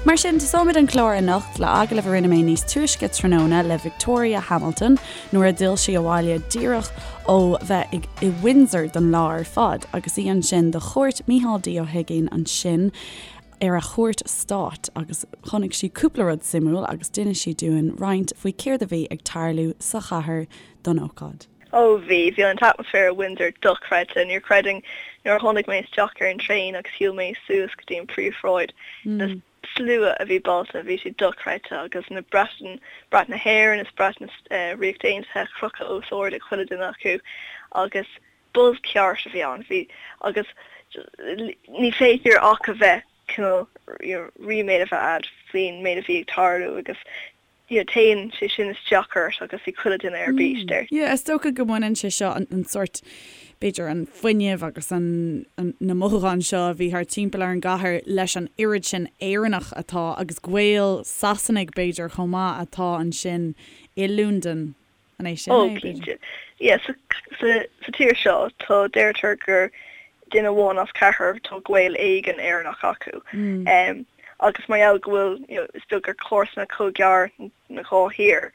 Mar sin, tosóimid an clár anocht le agallamh a rinne mé níos túisce tráthnóna le Victoria Hamilton nuair a d'fhill sí abhaile díreach ó bheith i Windsor don lá ar fad agus í ansin do chuairt Mícheál D Ó hUiginn ansin ar a chuairt stáit agus chonaic sí cúpla rud suimiúil agus d'inis sí dúinn roinnt faoi céard a bhí ag tarlú sa chathair don ócáid. Ó bhí, bhí an t-atmaisféar i Windsor dochreidte, níor chreidfinn nuair a tháinig mé isteach ar an traein agus shiúil mé suas go dtí an príomhshráid, na slua a bhí bailte, bhí sé dochreidte agus na brait, brat na hÉireann is brat na Ríochta Aontaithe crochadh os ard ag chuile duine acu agus buzz ceart a bhí ann, bhí agus ní féidir ach a bheith cineál ríméad a bheith a'd faoin méid a bhí ag tarlú agus you know téann sé sin isteach ort agus bhí chuile duine ar bís deir. Yeah, is dócha go mbaineann sé seo an sórt, b'fhéidir an fuinneamh agus an na mothúcháin seo a bhí thart timpeall ar an gcathair leis an oiread sin Éireannach atá agus Gael Sasanaigh b'fhéidir chomh maith atá ansin i Londain. An é sin é, b'fhéidir? Ó, cinnte. Yeah, sa, sa, sa tír seo, tá, deirtear gur duine amháin as ceathrar, tá gaol éigin Éireannach acu. Um, agus mar gheall go bhfuil, you know, is beag gur comharsana chomh gearr na dhá thír,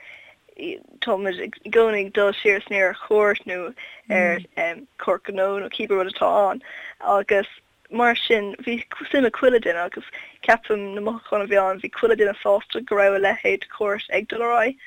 tá muid i gcónaí ag dul siar is aniar ar chuairt nó ar um, cuairt gnó nó cibé rud atá ann. Agus Mar sin, bhí suim ag chuile duine agus ceapaim na mothúcháin a bhí ann, bhí chuile duine sásta go raibh a leithéid de chuairt ag dul ar aghaidh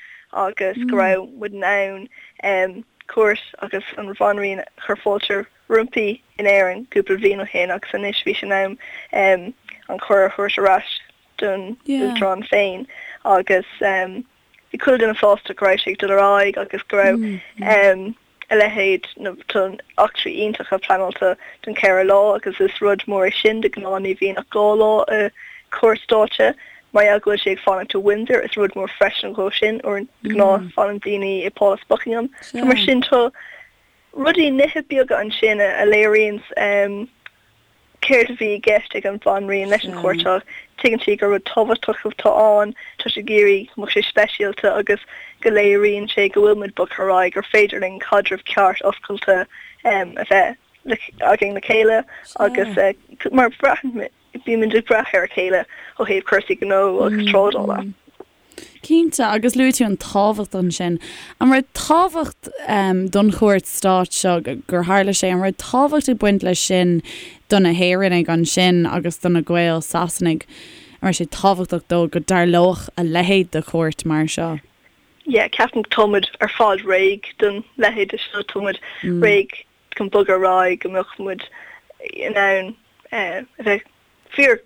agus go raibh muid in ann cuairt agus an Bhanríon a chur fáilte roimpi in Éirinn cúpla bliain ó shin agus anois bhí sé in am an cuireadh a thabhairt ar ais don Uachtarán féin agus bhí chuile duine sásta go raibh sé ag dul ar aghaidh agus go raibh a leithéid, nó tá eachtraí iontacha pleanáilte don cheithre lá agus is rud mór é sin, de ghnáth ní bhíonn ach 2 lá i cuairt stáit. Mar gheall go bhfuil sé ag fanacht i Windsor is rud mór freisin dhó sin, de ghnáth fanann daoine i Pálás Buckingham. So mar sin tá rudaí, nithe beaga ansin a léiríonns céard a bhí i gceist ag an Bhanríon leis an chuairt seo. Tuigeann sí gur rud tábhachtach atá ann, tá sí ag iarraidh go mbeadh sé speisialta agus go léiríonn sé go bhfuil muid bogtha ar aghaidh, gur féidir linn caidreamh ceart oscailte a bheith againn le chéile agus mar braitheann, bímid ag brath ar a chéile ó thaobh cúrsaí gnó agus trádála. Cinnte, agus luaigh tú an tábhacht ansin. An raibh tábhacht don chuairt stáit seo gur tharla sé, an raibh tábhacht ag baint leis sin do na hÉireannaigh ansin agus do na Gaeil Sasanaigh? An raibh sé tábhachtach dóibh go dtarlódh a leithéid de chuairt mar seo? Yeah, ceapaim go tá muid ar fad réidh don leithéid de seo, tá muid réidh chun bogadh ar aghaidh, go mbeadh muid in ann a bheith fíor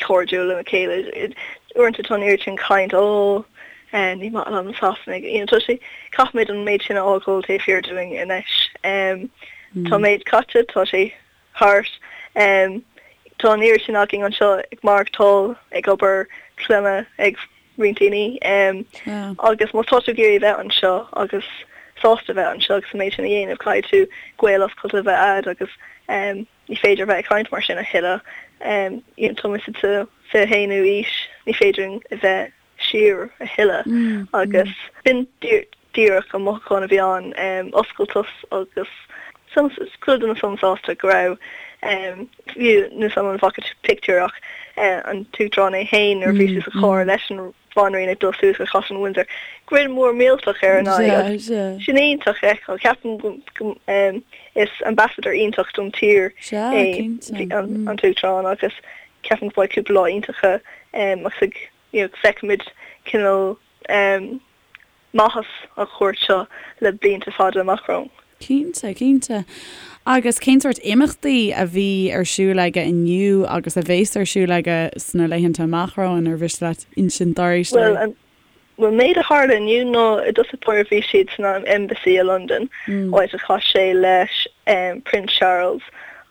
cairdiúil lena chéile. Uaireanta tá an oiread sin caint, ó, ní maith liom na Sasanaigh. You know, tá sé, caithfimid an méid sin a fhágáil taobh thiar dúinn anois. Tá an méid caite, tá sé thart. Tá an oiread sin againn anseo ag maireachtáil, ag obair, clainne ag roinnt daoine. Agus má tá tú ag iarraidh a bheith anseo agus sásta a bheith anseo agus an méid sin a dhéanamh, caithfidh tú gaol oscailte a bheith a'd agus Ní féidir a bheith ag caint mar sin a thuilleadh. Tá muid sa 21ú aois, ní féidir linn a bheith siar a thuilleadh. Agus b'in díreach an mothúchán a bhí ann, oscailteacht agus chuile duine sona sásta go raibh, fiú níl 'fhios a'm an bhfaca tú pictiúr ach an tUachtarán é féin nuair a bhí sé sa charr leis an Bhanríon ag dul suas go Caisleán Windsor. Grin mór millteach ar a n-aghaidh agus sin iontach a fheiceáil. Ceapaim go is ambassador iontach don tír é an tUachtarán agus ceapaim go mbeidh cúpla lá iontacha agus ag you know feicfimid cineál maitheas an chuairt seo le blianta fada amach romhainn. Cinnte, cinnte. Agus cén sórt imeachtaí a bhí ar siúl aige inniu agus a bhéas ar siúl aige sna laethanta amach romhainn, ar mhiste leat insint dár éisteoirí? Bhuel, an bhuel, méid a tharla inniu ná i dtosach báire bhí siad san Embassy i Londain, áit a chas sé leis Prince Charles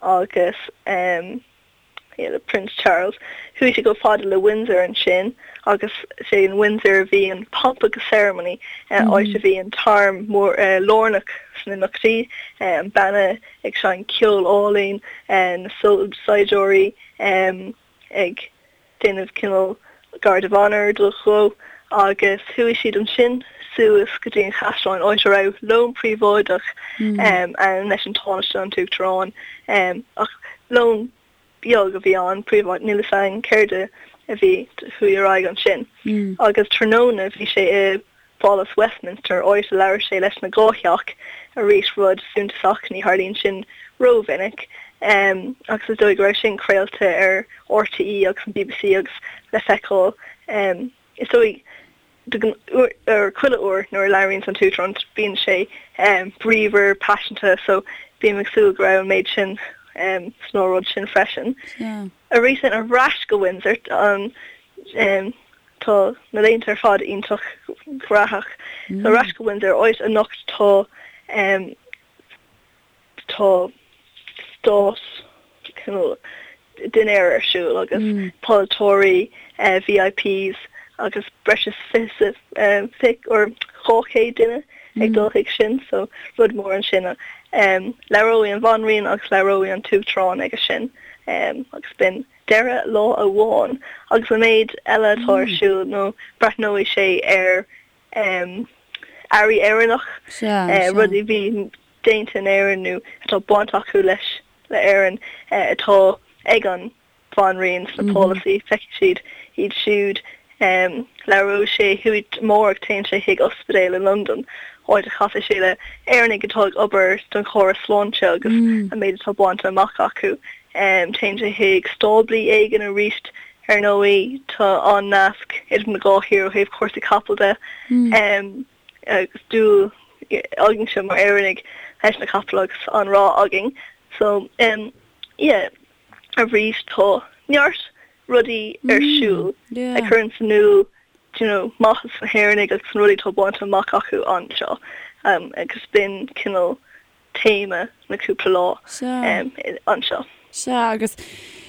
agus le Prince Charles. Chuaigh sé chomh fada le Windsor ansin agus is é in Windsor a bhí an pomp agus ceremony, áit a bhí an t-arm mór lárnach sna imeachtaí, an banna ag seinnt ceol álainn, na saighdiúirí ag déanamh cineál guard of honour dó agus chuaigh siad ansin suas go dtí an chaisleán áit a raibh lón príobháideach ann leis an Tánaiste an tUachtarán ach lón beag a bhí ann, príobháideach, níl fhios againn céard a. a bhí chuaigh ar aghaidh ansin. Agus tráthnóna bhí sé i bPálas Westminster, áit a labhair sé leis na dhá theach, arís rud suntasach, ní tharlaíonn sin rómhinic, agus is dóigh go raibh sin craolta ar RTÉ agus an bbc agus le feiceáil, is dóigh, ar chuile uair nuair a labhraíonns an tUachtarán bíonn sé bríomhar, paiseanta, so bím ag súil go raibh an méid sin san óráid sin freisin. Arís ar ais go Windsor, an tá na laethanta ar fad iontach graitheach. So ar ais go Windsor, áit anocht tá tá stát cineál dinnéar ar siúl agus polaiteoirí, VIPs agus breis is 20 or 200 duine ag dul chuig sin so rud mór ansin. Labhróidh an Bhanríon agus labhróidh an tUachtarán aige sin agus b'in deireadh lá amháin agus an méid eile atá ar siúl nó breathnóidh sé ar earraí Éireannach, rudaí a bhí déanta in Éirinn nó atá baint acu leis le Éirinn atá ag an Bhanríon sna pálasaí, feicfidh siad iad siúd. Labhróidh sé chuaigh amárach téann sé chuig ospidéal i Londain, áit a chasfaidh sé le Éireannaigh atá ag obair don chóras sláinte agus an méid atá bainte amach acu. Téann sé chuig stáblaí éigin arís, ar ndóigh tá an-nasc idir na dhá thír ó thaobh cúrsaí capall de agus dúil againse mar Éireannaigh leis na capaill agus an-rath againn. So yeah. Arís tá neart rudaí ar siúl a chuireann in iúl you know maitheas na hÉireannaigh agus na rudaí atá bainte amach acu anseo agus b'in cineál téama na cúpla lá anseo. Sea, agus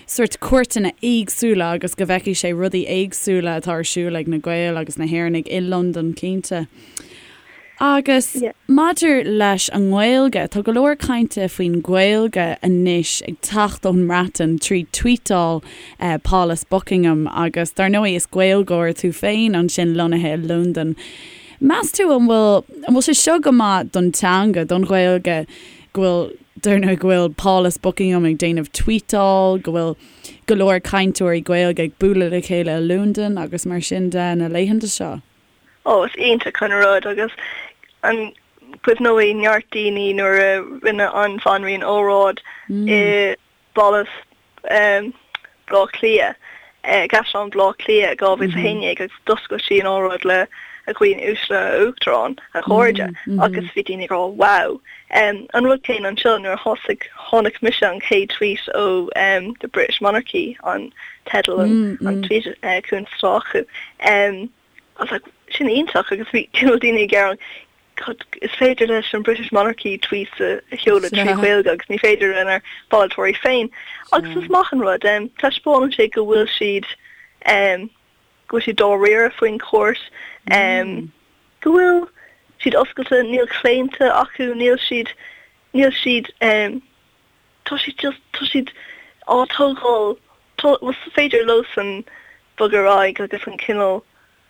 sórt cuairteanna éagsúla agus go bhfeicfidh sé rudaí éagsúla atá ar siúl ag na Gaeil agus na hÉireannaigh i Londain cinnte. Agus maidir leis an nGaeilge, tá go leor cainte faoin Ghaeilge anois ag teacht ón mBreatain trí tweetáil Pálas Buckingham agus dar ndóigh is Gaeilgeoir tú féin ansin lonnaithe i Londain. Meas tú an bhfuil an bhfuil sé seo go maith don teanga, don Ghaeilge, go bhfuil dar ndóigh go bhfuil Pálas Buckingham ag déanamh tweetáil, go bhfuil go leor cainteoirí Gaeilge ag bualadh le chéile i Londain agus mar sin de na laethanta seo? Ó, is iontach an rud agus an cuimhneoidh neart daoine nuair a rinne an Bhanríon óráid i bPálas Bhaile Átha Cliath, i gCaisleán Bhaile Átha Cliath i 2011 agus d'oscail sí an óráid le A dhaoine uaisle, a Uachtaráin, a chairde agus bhí daoine ag rá wow. An rud céanna anseo nuair a thosaigh, chonaic mise an chéad tweet ó The British Monarchy, an teideal an tweet cuntas atá acu. I was like, sin iontach agus bhí cineál daoine ag gearán, God, is féidir leis an British Monarchy tweets a sheoladh trí Ghaeilge agus ní féidir lenár bpolaiteoirí féin. Agus is maith an rud, taispeánann sé go bhfuil siad, go bhfuil siad dáiríre faoin chúirt, go bhfuil siad oscailte, níl claonta acu, níl siad, níl siad, tá siad just, tá siad á tógáil, tá, is féidir leosan bogadh ar aghaidh agus an cineál,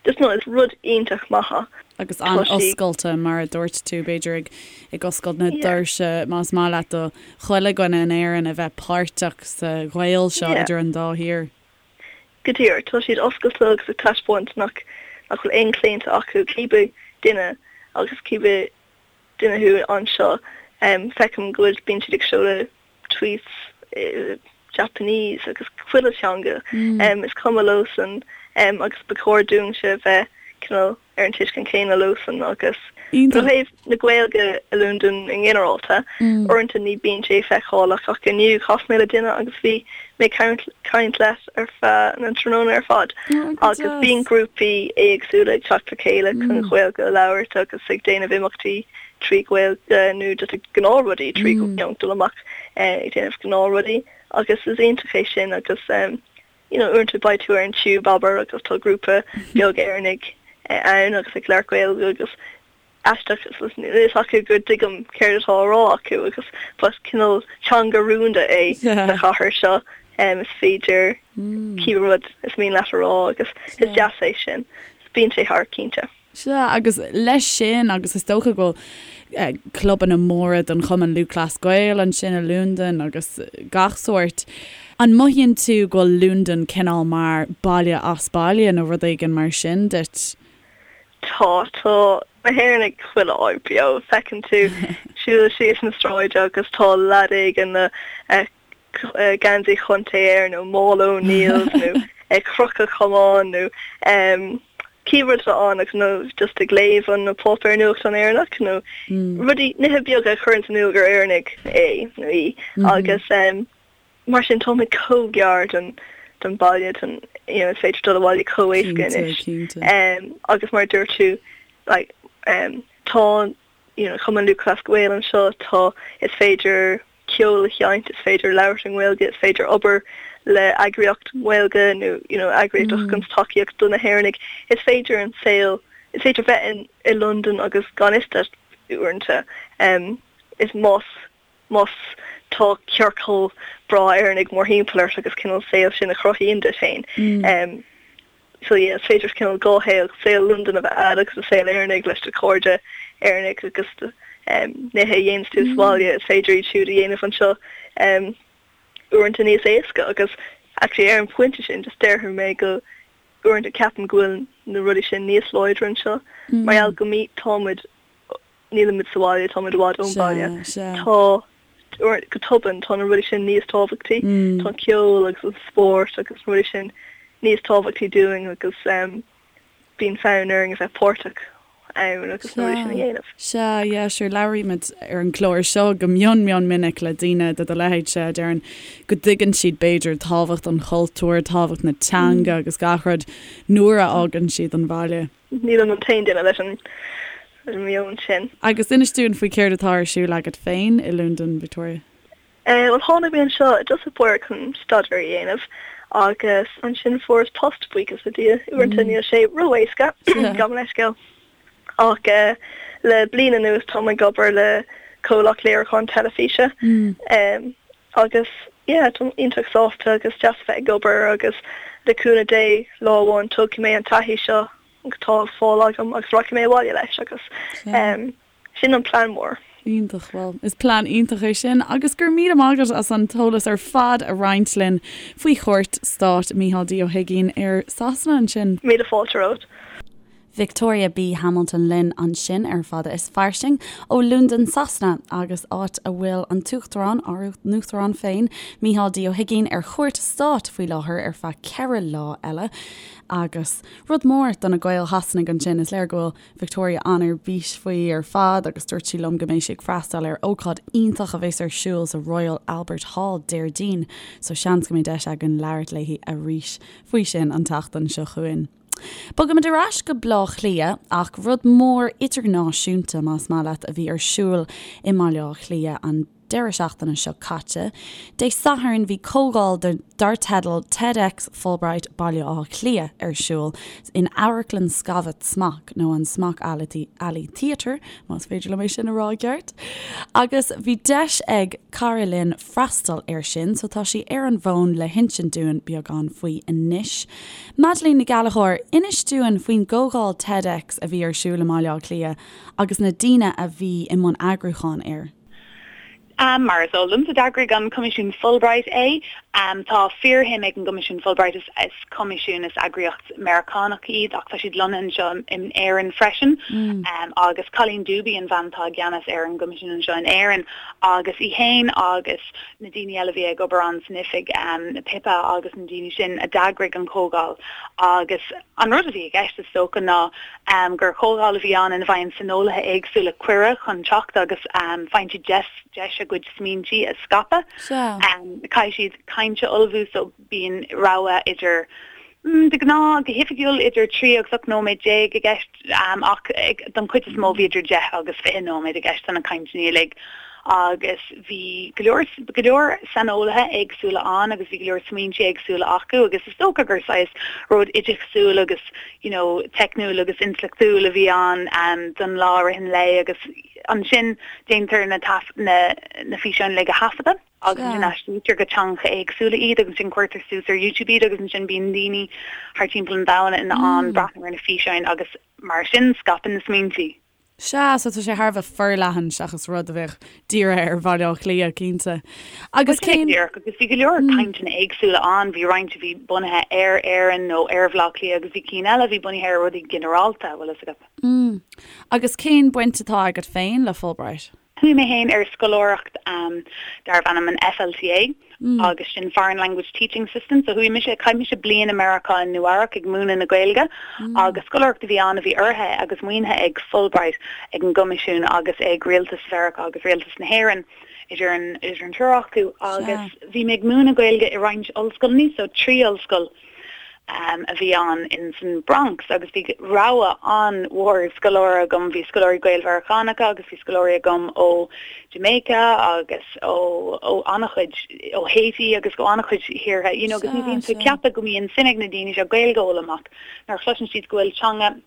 just no, is rud iontach maith é. Agus an-oscailte, mar a dúirt tú, b'fhéidir ag, ag oscailt na doirse, más maith leat, do chuile dhuine in Éirinn a bheith páirteach sa ghaol seo idir an dá thír. Go díreach, tá siad oscailte agus ag taispeáint nach, nach bhfuil aon chlaonta acu, cibé duine agus cibé duine thú anseo. Feicim go bhfuil, bíonn siad ag seoladh tweets i Japanese agus chuile teanga. Is cuma leosan agus ba chóir dúinnse bheith cineál ar an tuiscint chéanna leosan agus ó thaobh na Gaeilge i Londain i nginearálta, uaireanta ní bíonn sé feiceálach ach inniu chas mé le duine agus bhí mé ag caint leis ar feadh na tráthnóna ar fad agus bíonn grúpaí éagsúla ag teacht le chéile chun Gaeilge a labhairt agus ag déanamh imeachtaí trí Ghaeilge nó just ag gnáthrudaí trí you know dul amach ag déanamh gnáthrudaí agus is iontach é sin agus you know uaireanta beidh tú ar an tube abair agus tá grúpa beag Éireannaigh ann agus ag labhairt Gaeilge agus aisteach níl a fhios acu go dtuigim céard atá á rá acu agus but cineál teanga rúnda é sa chathair seo is féidir cibé rud is mian leat a rá agus is deas é sin. Bíonn sé thart cinnte. Sea, agus leis sin, agus is dócha go bhfuil clubanna móra don Chumann Lúthchleas Gael ansin i Londain agus gach sórt. An mothaíonn tú go bhfuil Londain cineál mar baile as baile nó rud éigin mar sin duit? Tá, tá na hÉireannaigh chuile áit beo. Feiceann tú siúl síos na sráide agus tá leaid éigin le geansaí chontae air nó mála O'Neill's nó ag crochadh camán nó cibé rud atá ann agus nó just ag léamh an na páipéir nuachtán Éireannach nó rudaí, nithe beaga a chuireann in iúl gur Éireannaigh é nó í agus mar sin táimid chomh gar don don baile don you know is féidir dul abhaile chomh éasca anois agus mar a dúirt tú like tá you know Cumann Lúthchleas Gael anseo tá is féidir ceol a sheinnt, is féidir labhairt i nGaeilge, is féidir obair le eagraíocht Ghaeilge nó you know eagraíocht a thugann tacaíocht do na hÉireannaigh. Is féidir an saol, is féidir bheith in i Londain agus gan fhios duit uaireanta. Is más más tá ciorcal breá Éireannaigh mórthimpeall ort agus cineál saol sin a chruthaíonn duit féin. So yeah, is féidir cineál dhá shaol, saol Londain a bheith a'd agus an saol Éireannaigh leis do chairde Éireannaigh agus do nithe a dhéananns tú sa bhaile, is féidir iad siúd a dhéanamh anseo uaireanta níos éasca agus actually ar an phointe sin just déarfaidh mé go uaireanta ceapaim go bhfuil na rudaí sin níos láidre anseo mar gheall go mí tá muid nílimid sa bhaile, táimid i bhfad ón bhaile. Tá, go tobann, tá na rudaí sin níos tábhachtaí. Tá an ceol agus an spórt agus na rudaí sin níos tábhachtaí dúinn agus bíonn fonn orainn a bheith páirteach ann agus na rudaí sin a dhéanamh. Sea, yeah, sure, labhraímid ar an gclár seo go mion mion minic le daoine de do leithéidse a deireann go dtuigeann siad b'fhéidir tábhacht an chultúir, tábhacht na teanga agus gach rud nuair a fhágann siad an bhaile. Nílim an t-aon duine leis an meon sin. Agus inis dúinn faoi céard atá ar siúl agat féin i Londain, Victoria. Bhuel, tháinig mé anseo i dtosach báire chun staidéar a dhéanamh agus ansin fuaireas post, buíochas le Dia. Uaireanta níl sé ró-éasca, gabh mo leithscéal. Ach le bliain anuas táim ag obair le comhlacht léiriúcháin teilifíse agus yeah, táim iontach sásta agus deas a bheith ag obair agus le cúnamh Dé lá amháin tógfaidh mé an taithí seo atá á fáil agam agus rachaidh mé abhaile leis agus sin an plean mór. Iontach, bhuel is plean iontach é sin agus go raibh míle maith agat as an t-eolas ar fad a roinnt linn faoi chuairt stáit Mícheál D Ó hUigínn ar Sasana ansin. Míle fáilte romhat. Victoria B. Hamilton linn ansin ar Fada is Fairsing ó Londain Sasana agus áit a bhfuil an tUachtarán, ár n-uachtarán féin, Mícheál D. Ó hUigínn ar chuairt stáit faoi láthair ar feadh ceithre lá eile. Agus rud mór do na Gaeil Shasanaigh ansin, is léir go bhfuil Victoria an-ar bís faoi ar fad agus dúirt sí liom go mbeidh sí ag freastal ar ócáid iontach a bheas ar siúl sa Royal Albert Hall Déardaoin, so seans go mbeidh deis againn labhairt léi arís faoi sin an tseachtain seo chugainn. Bogaimid ar ais go Baile Átha Cliath ach rud mór idirnáisiúnta, más maith leat, a bhí ar siúl i mBaile Átha Cliath an deireadh seachtaine seo caite. Dé Sathairn bhí comhdháil dar teideal TEDx Fulbright Baile Átha Cliath ar siúl in Amharclann Scavat Smock, nó an Smock Alley Theatre, más féidir liom é sin a rá i gceart. Agus bhí deis ag cara linn freastal air sin, so tá sí ar an bhfón le hinsint dúinn beagán faoi anois. Madeleine Nic Gallchóir, inis dúinn faoin gcomhdháil TEDx a bhí ar siúl i mBaile Átha Cliath agus na daoine a bhí i mbun eagrúcháin air. Mar is eol domsa, d'eagraigh an Coimisiún Fulbright é. Tá fíorshuim ag an gCoimisiún Fulbright, is coimisiún, is eagraíocht Meiriceánach iad ach tá siad lonnaithe anseo in Éirinn freisin, agus Colleen Dube an bhean atá i gceannas ar an gcoimisiún anseo in Éirinn agus í féin agus na daoine eile a bhí ag obair ann san oifig, Pippa agus na daoine sin a d'eagraigh an chomhdháil agus an rud a bhí i gceist is dócha ná gur chomhdháil a bhí ann ina bhfaigheann saineolaithe éagsúla cuireadh chun teacht agus faigheann siad deis deis a gcuid smaointí a scaipeadh. Caithfidh siad caint a ullmhú so bíonn rogha idir, de ghnáth, go hoifigiúil, idir 3 agus 18 nóiméad i gceist ach don chuid is mó bhí idir 10 agus 20 nóiméad i gceist do na cainteanna uilig agus bhí go leor, go leor saineolaithe éagsúla ann agus bhí go leor smaointe éagsúla acu agus is dócha gur saghas rud oideachasúil agus you know teicniúil agus intleachtúil a bhí ann don lá i rith an lae agus ansin déantar na na na físeáin uilig a thaifeadadh. agus ansin aistrítear go teangacha éagsúla iad agus ansin cuirtear suas ar YouTube iad agus ansin bíonn daoine thar timpeall an domhain in ann breathnú ar na físeáin agus mar sin scaipeann na smaointí. Sea, so tá sé thar a bheith forleathan seachas rud a bheadh dírithe ar Bhaile Átha Cliath, cinnte. Agus cén. Díreach, agus bhí go leor cainteanna éagsúla ann, bhí roinnt a bhí bunaithe ar Éirinn nó ar Bhaile Átha Cliath agus bhí cinn eile a bhí bunaithe ar rudaí ginearálta, bhfuil fhios agat. Agus cén baint atá agat féin le Fulbright? Chuaigh mé féin ar scoláireacht darbh ainm an FLTA agus sin Foreign Language Teaching Assistant. So chuaigh mise, chaith mise bliain i Meiriceá i Nua-Eabhrac ag múineadh na Gaeilge agus scoláireacht a bhí ann a bhí urraithe agus maoinithe ag Fulbright, ag an gCoimisiún agus ag Rialtas Mheiriceá agus Rialtas na hÉireann idir an idir an triúr acu agus bhí mé ag múineadh Gaeilge i roinnt ollscoileanna, so 3 ollscoil. a bhí ann in san Bronx agus bhí rogha an-mhór scoláire agam, bhí scoláirí Gael-Mheiriceánacha agus bhí scoláirí agam ó Jamaica agus ó ó an-chuid ó Haiti agus ó an-chuid thíortha you know agus ní bhíonn tú ag ceapadh go mbíonn suim ag na daoine seo Gaeilge a fhoghlaim ach nuair a chloiseann siad go bhfuil teanga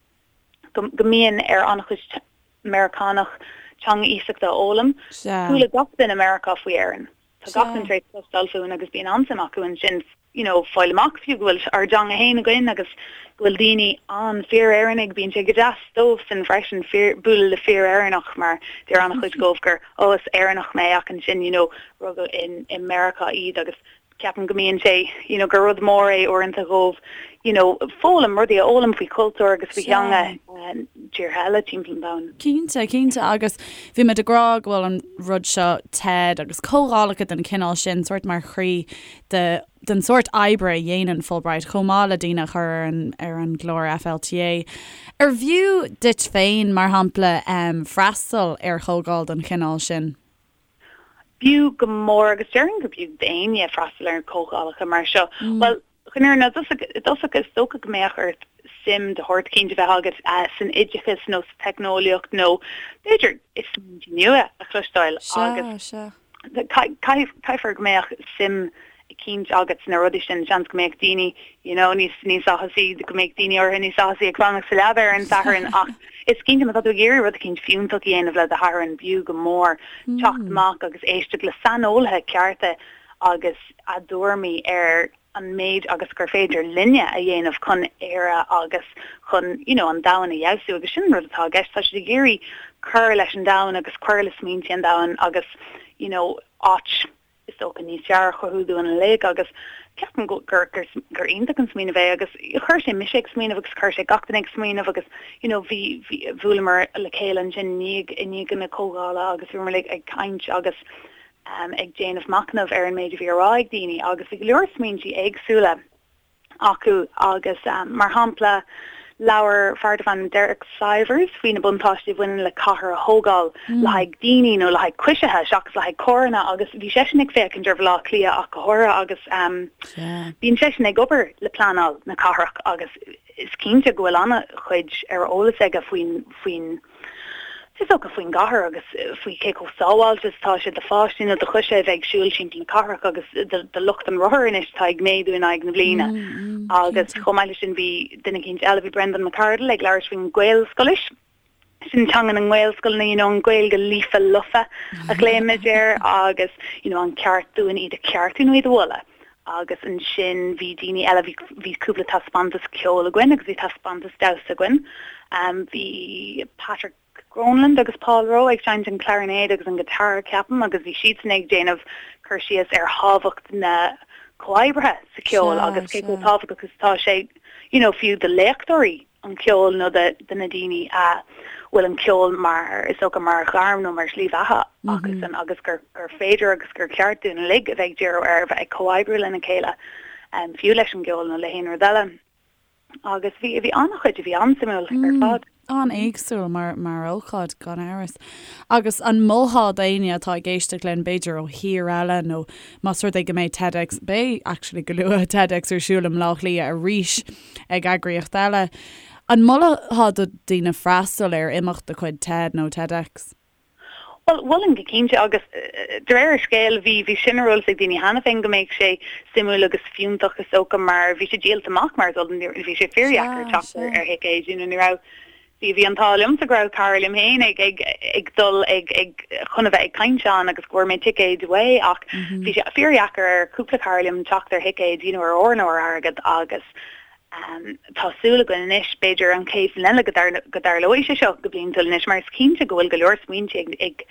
go go mbíonn ar an-chuid Meiriceánach teanga iasachta a fhoghlaim. Chuala gach duine i Meiriceá faoi Éirinn. Tá gach duine tar éis cloisteáil fúinn agus bíonn an-suim acu ansin you know fáil amach fiú go bhfuil ár dteanga fhéin againn agus go bhfuil daoine ann fíor-Éireannaigh, bíonn sé go deas dóibhsan freisin fíor, bualadh le fíor-Éireannach mar deir an-chuid dhóibh gur oh is Éireannach mé ach ansin you know rugadh in i Meiriceá iad agus ceapaim go mbíonn sé you know gur rud mór é uaireanta dhóibh you know foghlaim, rudaí a fhoghlaim faoi chultúr agus faoi theanga tíortha eile timpeall an domhain. Cinnte, cinnte agus bhí muid ag rá go bhfuil an rud seo TED agus comhdhálacha den chineál sin sórt mar chroí de den sórt oibre a dhéanann Fulbright chomh maith le daoine a chur ar an ar an gclár FLTA. Ar bhfiú duit féin, mar shampla, freastal ar chomhdháil den chineál sin? B'fhiú go mór agus déarfainn gur b'fhiú d'éinne freastal ar comhdhálacha mar seo. Bhuel, chun an fhírinne i dtosach is dócha go mbeadh ort suim de shórt eicínt a bheith agat san oideachas nó sa teicneolaíocht nó b'fhéidir i smaointe nua a chloisteáil agus caithfear go mbeadh suim eicínt agat sna rudaí sin, seans go mbeadh daoine you know níos níos áthasaí, go mbeadh daoine áirithe níos áthasaí ag fanacht sa leaba ar an Satharn ach is cinnte má tá tú ag iarraidh rud eicínt fiúntach a dhéanamh le do Shatharn b'fhiú go mór teacht amach agus éisteacht le saineolaithe cearta agus a dtuairimí ar an méid agus gur féidir linne a dhéanamh chun Éire agus chun you know an domhan a fheabhsú agus sin an rud atá i gceist, tá siad ag iarraidh cur leis an domhan agus cur le smaointe an domhain agus you know áit is dócha, níos fearr a chruthú dúinn uilig agus ceapaim gur gur gur iontach an smaoineamh é agus chuir sé mise ag smaoineamh agus chuir sé gach duine ag smaoineamh agus you know bhí bhí bhuaileamar le chéile ansin i ndiaidh i ndiaidh na comhdhála agus bhíomar uilig ag caint agus um ag déanamh machnamh ar an méid a bhí á rá ag daoine agus bhí go leor smaointí éagsúla acu agus, mar shampla, labhair fear darbh ainm Derek Sivers faoi na buntáistí a bhaineann le cathair a thógáil le haghaidh daoine nó le haghaidh coisithe seachas le haghaidh carranna agus bhí seisean ag féachaint ar Bhaile Átha Cliath ach go háirithe agus bíonn seisean ag obair le pleanáil na cathrach agus is cinnte go bhfuil an-chuid ar eolas aige faoin faoin Is dócha faoin gcathair agus faoi cé chomh sábháilte is atá sé do pháistí nó do choisithe a bheith ag siúl timpeall na cathrach agus do lucht an rothair anois atá ag méadú in aghaidh na bliana. Agus chomh maith leis sin bhí duine eicínt eile, bhí Brendan McCardle ag labhairt faoin Ghaelscolaois, sin teanga na nGaelscoileanna, you know an Ghaeilge líofa lofa a ghlaoimid air agus you know an ceart dúinn iad a cheartú nó iad a mholadh. Agus ansin bhí daoine eile, bhí, bhí cúpla taispeántas ceoil againn agus bhí taispeántas damhsa againn. Bhí Patrick Gronlund agus Paul Rowe ag seinnt an clarinéad agus an guitar, ceapaim, agus bhí siadsan ag déanamh cur síos ar thábhacht na comhoibrithe sa cheol agus cé chomh tábhachtach is atá sé, you know, fiú do léachtóirí. an cheoil nó do na daoine a bhfuil an ceol mar, is dócha, mar ghairm nó mar shlí bheatha acusan agus gur féidir agus gur ceart dúinn uilig a bheith ag díriú ar a bheith ag comhoibriú lena chéile, fiú leis an gceol nó le haon rud eile. Agus bhí, bhí an-chuid a bhí an-suimiúil ar fad. An-éagsúil mar, mar ócáid, gan amhras. Agus an molfá d'éinne atá ag éisteacht linn, b'fhéidir ó thír eile nó más rud é go mbeidh TEDx, beidh actually go luath, TEDx ar siúl i mBleá Cliath arís, ag eagraíocht eile. An molfá do dhaoine freastal ar imeacht de chuid TED nó TEDx? Bhuel, mholfainn go cinnte agus de réir an scéil bhí bhí sin ar eolas ag daoine cheana féin go mbeadh sé suimiúil agus fiúntach is dócha mar bhí sé díolta amach mar is eol bhí sé fíordheacair teacht ar thicéid you know ní raibh Bhí bhí an t-ádh liomsa go raibh cara liom féin ag ag ag dul ag ag chun a bheith ag caint ann agus go bhfuair mé ticéid uaidh ach bhí sé fíordheacair ar cúpla cara liom teacht ar thicéid you know ar ór nó ar airgead agus. Tá súil againn anois, b'fhéidir an chéad bhliain eile go dtarlóidh sé seo go bliantúil anois mar is cinnte go bhfuil go leor smaointe ag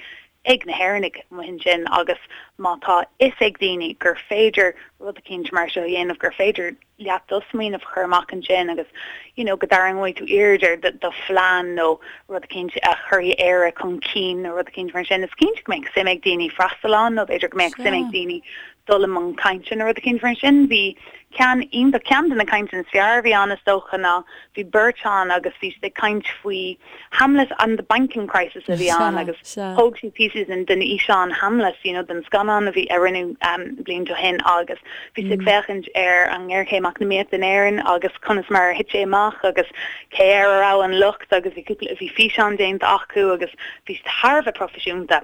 ag na hÉireannaigh amuigh ansin agus má tá fhios ag daoine gur féidir rud eicínt mar seo a dhéanamh, gur féidir leat do smaoineamh a chur amach ansin agus you know go dtarraingeoidh tú aird ar do phlean nó rud eicínt a chuirfidh Éire chun cinn nó rud eicínt mar sin, is cinnte go mbeadh suim ag daoine freastal ann nó b'fhéidir go mbeadh suim ag daoine dul i mbun cainte nó rud eicínt mar sin. Bhí ceann iontach, ceann de na cainteanna is fearr a bhí ann is dócha ná bhí beirt ann agus bhí siad ag caint faoi Hamlet and the Banking Crisis a bhí ann agus thóg siad píosaí den den fhíseán Hamlet, you know, den scannán a bhí a rinneadh blianta ó shin agus bhí siad ag féachaint ar an ngéarchéim eacnamaíochta in Éirinn agus conas mar a thit sé amach agus cé air a raibh an locht agus bhí cúpla bhí físeán déanta acu agus bhí siad thar a bheith proifisiúnta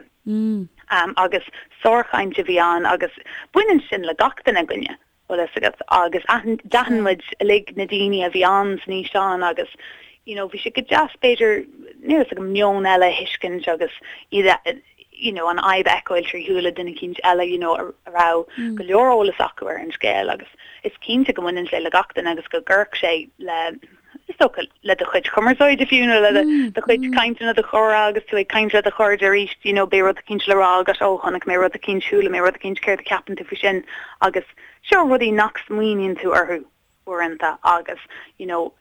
agus sárchaint a bhí ann agus baineann sin le gach duine againne. bhfuil fhios agat, agus d'aithin muid uilig na daoine a bhí ann san fhíseán agus you know bhí sé go deas b'fhéidir, níl fhios agam, meon eile a thuiscint agus iad a, you know an fhadhb a fheiceáil trí shúile duine eicínt eile you know a raibh go leor eolas acu ar an scéal agus is cinnte go mbaineann sé le gach duine agus go gcuirfeadh sé le is dócha, le do chuid cumarsáide fiú nó le do chuid cainte nó do chomhrá agus tú ag caint le do chairde arís, you know, beidh rud eicínt le rá agat, ó, chonaic mé rud eicínt, chuala mé rud eicínt, céard a cheapann tú faoi sin? Agus seo rudaí nach smaoiníonn tú orthu uaireanta agus, you know,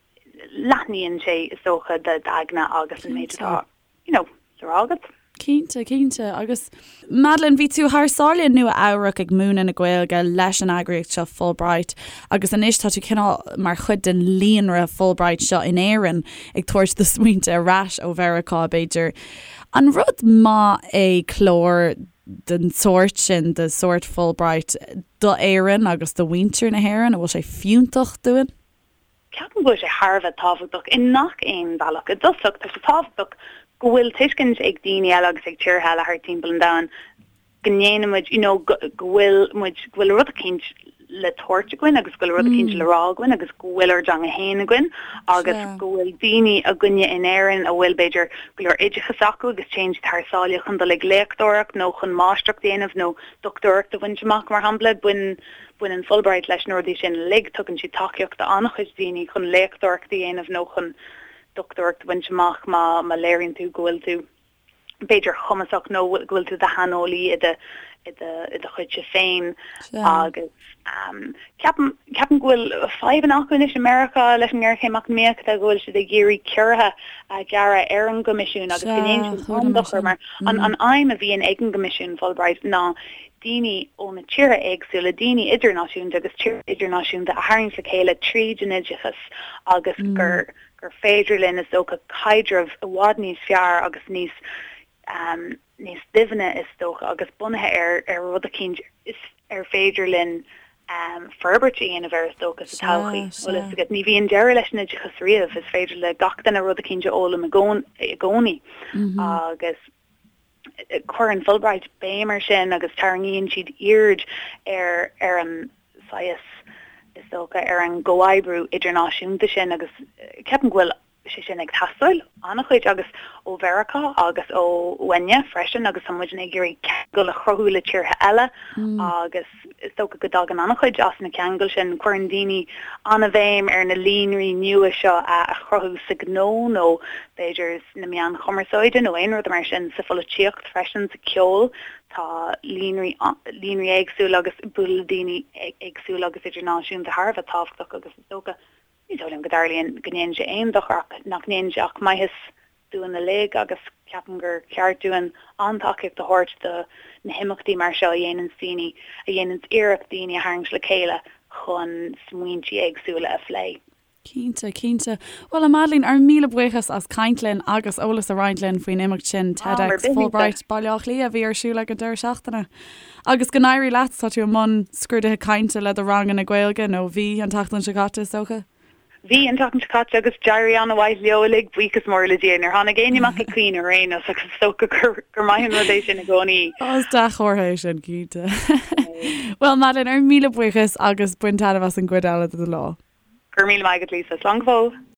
leathnaíonn sé, is dócha, d'aigne agus an méid atá. you know, le rá agat. Cinnte, cinnte. Agus Madeleine, bhí tú thar sáile i Nua Eabhrac ag múineadh na Gaeilge leis an eagraíocht seo Fulbright agus anois tá tú cineál mar chuid den líonra Fulbright seo in Éirinn ag tabhairt do smaointe ar ais ó Mheiriceá b'fhéidir. An rud maith é clár den sórt sin, de sórt Fulbright, do Éirinn agus do mhuintir na hÉireann? An bhfuil sé fiúntach dúinn? Ceapaim go bhfuil sé thar a bheith tábhachtach i ngach aon bhealach. I dtosach, tá sé tábhachtach go bhfuil tuiscint ag daoine eile agus ag tíortha eile thart timpeall an domhain go ndéanann muid, you know, go bhfuil muid, go bhfuil rud eicínt le tabhairt againn agus go bhfuil rud eicínt le rá againn agus go bhfuil ár dteanga féin againn agus go bhfuil daoine againne in Éirinn a bhfuil, b'fhéidir, go leor oideachas acu agus téann siad thar sáile chun dul ag léachtóireacht nó chun máistreacht a dhéanamh nó dochtúireacht a bhaint amach, mar shampla. Baineann. Baineann Fulbright leis na rudaí sin uilig, tugann siad tacaíocht d'an-chuid daoine chun léachtóireacht a dhéanamh nó chun dochtúireacht a bhaint amach má má léiríonn tú go bhfuil tú b'fhéidir cumasach nó go bhfuil tú i do shaineolaí i do i do i do chuidse féin agus ceapaim ceapaim go bhfuil fadhbanna acu anois i Meiriceá leis an ngéarchéim eacnamaíochta go bhfuil siad ag iarraidh ciorruithe a ghearradh ar an gCoimisiún agus go ndéanann sin an-dochar mar an an aidhm a bhíonn ag an gCoimisiún Fulbright ná daoine ó na tíortha éagsúla, daoine idirnáisiúnta agus tíortha idirnáisiúnta a tharraingt le chéile tríd an oideachas agus gur gur féidir linn, is dócha, caidreamh i bhfad níos fearr agus níos níos doimhne, is dócha, agus bunaithe ar ar rud eicínt is ar féidir linn forbairt a dhéanamh air, is dócha, sa todhchaí. Bhfuil fhios agat, ní bhíonn deireadh leis an oideachas riamh, is féidir le gach duine rud eicínt a fhoghlaim i gcónaí agus. Cuireann Fulbright béim air sin agus tarraingíonn siad aird ar ar an saghas, is dócha, ar an gcomhoibriú idirnáisiúnta sin agus ceapaim go bhfuil sé sin ag teastáil an-chuid agus ó Mheiriceá agus ó uainne freisin agus tá muidne ag iarraidh ceangal a chruthú le tíortha eile agus is dócha go dtagann an-chuid as na ceangail sin. Cuireann daoine an-bhéim ar na líonraí nua seo a chruthú sa ghnó nó b'fhéidir sna meáin chumarsáide nó aon rud mar sin, sa pholaitíocht freisin, sa cheol. Tá líonraí líonraí éagsúla agus bualadh le daoine éagsúla agus idirnáisiúnta thar a bheith tábhachtach agus is dócha, ní dóigh liom go dtarlaíonn, go ndéanann sé aon dochar ach nach ndéanann sé ach maitheas dúinn uilig agus ceapaim gur ceart dúinn an-tacaíocht a thabhairt do na himeachtaí mar seo a dhéananns daoine, a dhéananns iarracht daoine a tharraingt le chéile chun smaointí éagsúla a phlé. Cinnte, cinnte. Bhuel, a Madeleine, ár míle buíochas as caint linn agus eolas a roinnt linn faoin imeacht sin, TEDx Fulbright Baile Átha Cliath, a bhí ar siúl ag an deireadh seachtaine. Agus go n-éirí leat, tá tú i mbun scrúduithe cainte le do ranganna Gaeilge, nó bhí an tseachtain seo caite, is dócha? Bhí, an tseachtain seo caite, agus d'éirigh an-mhaith leo uilig, buíochas mór le Dia. Níor tháinig éinne amach ag caoineadh ar aon nós agus is dócha gur maith an rud é sin i gcónaí. Is dea-chomhartha é sin, cinnte. Bhuel, Madeleine, ár míle buíochas agus bain taitneamh as an gcuid eile de do lá. Go raibh míle maith agat, Lisa. Slán go fóill.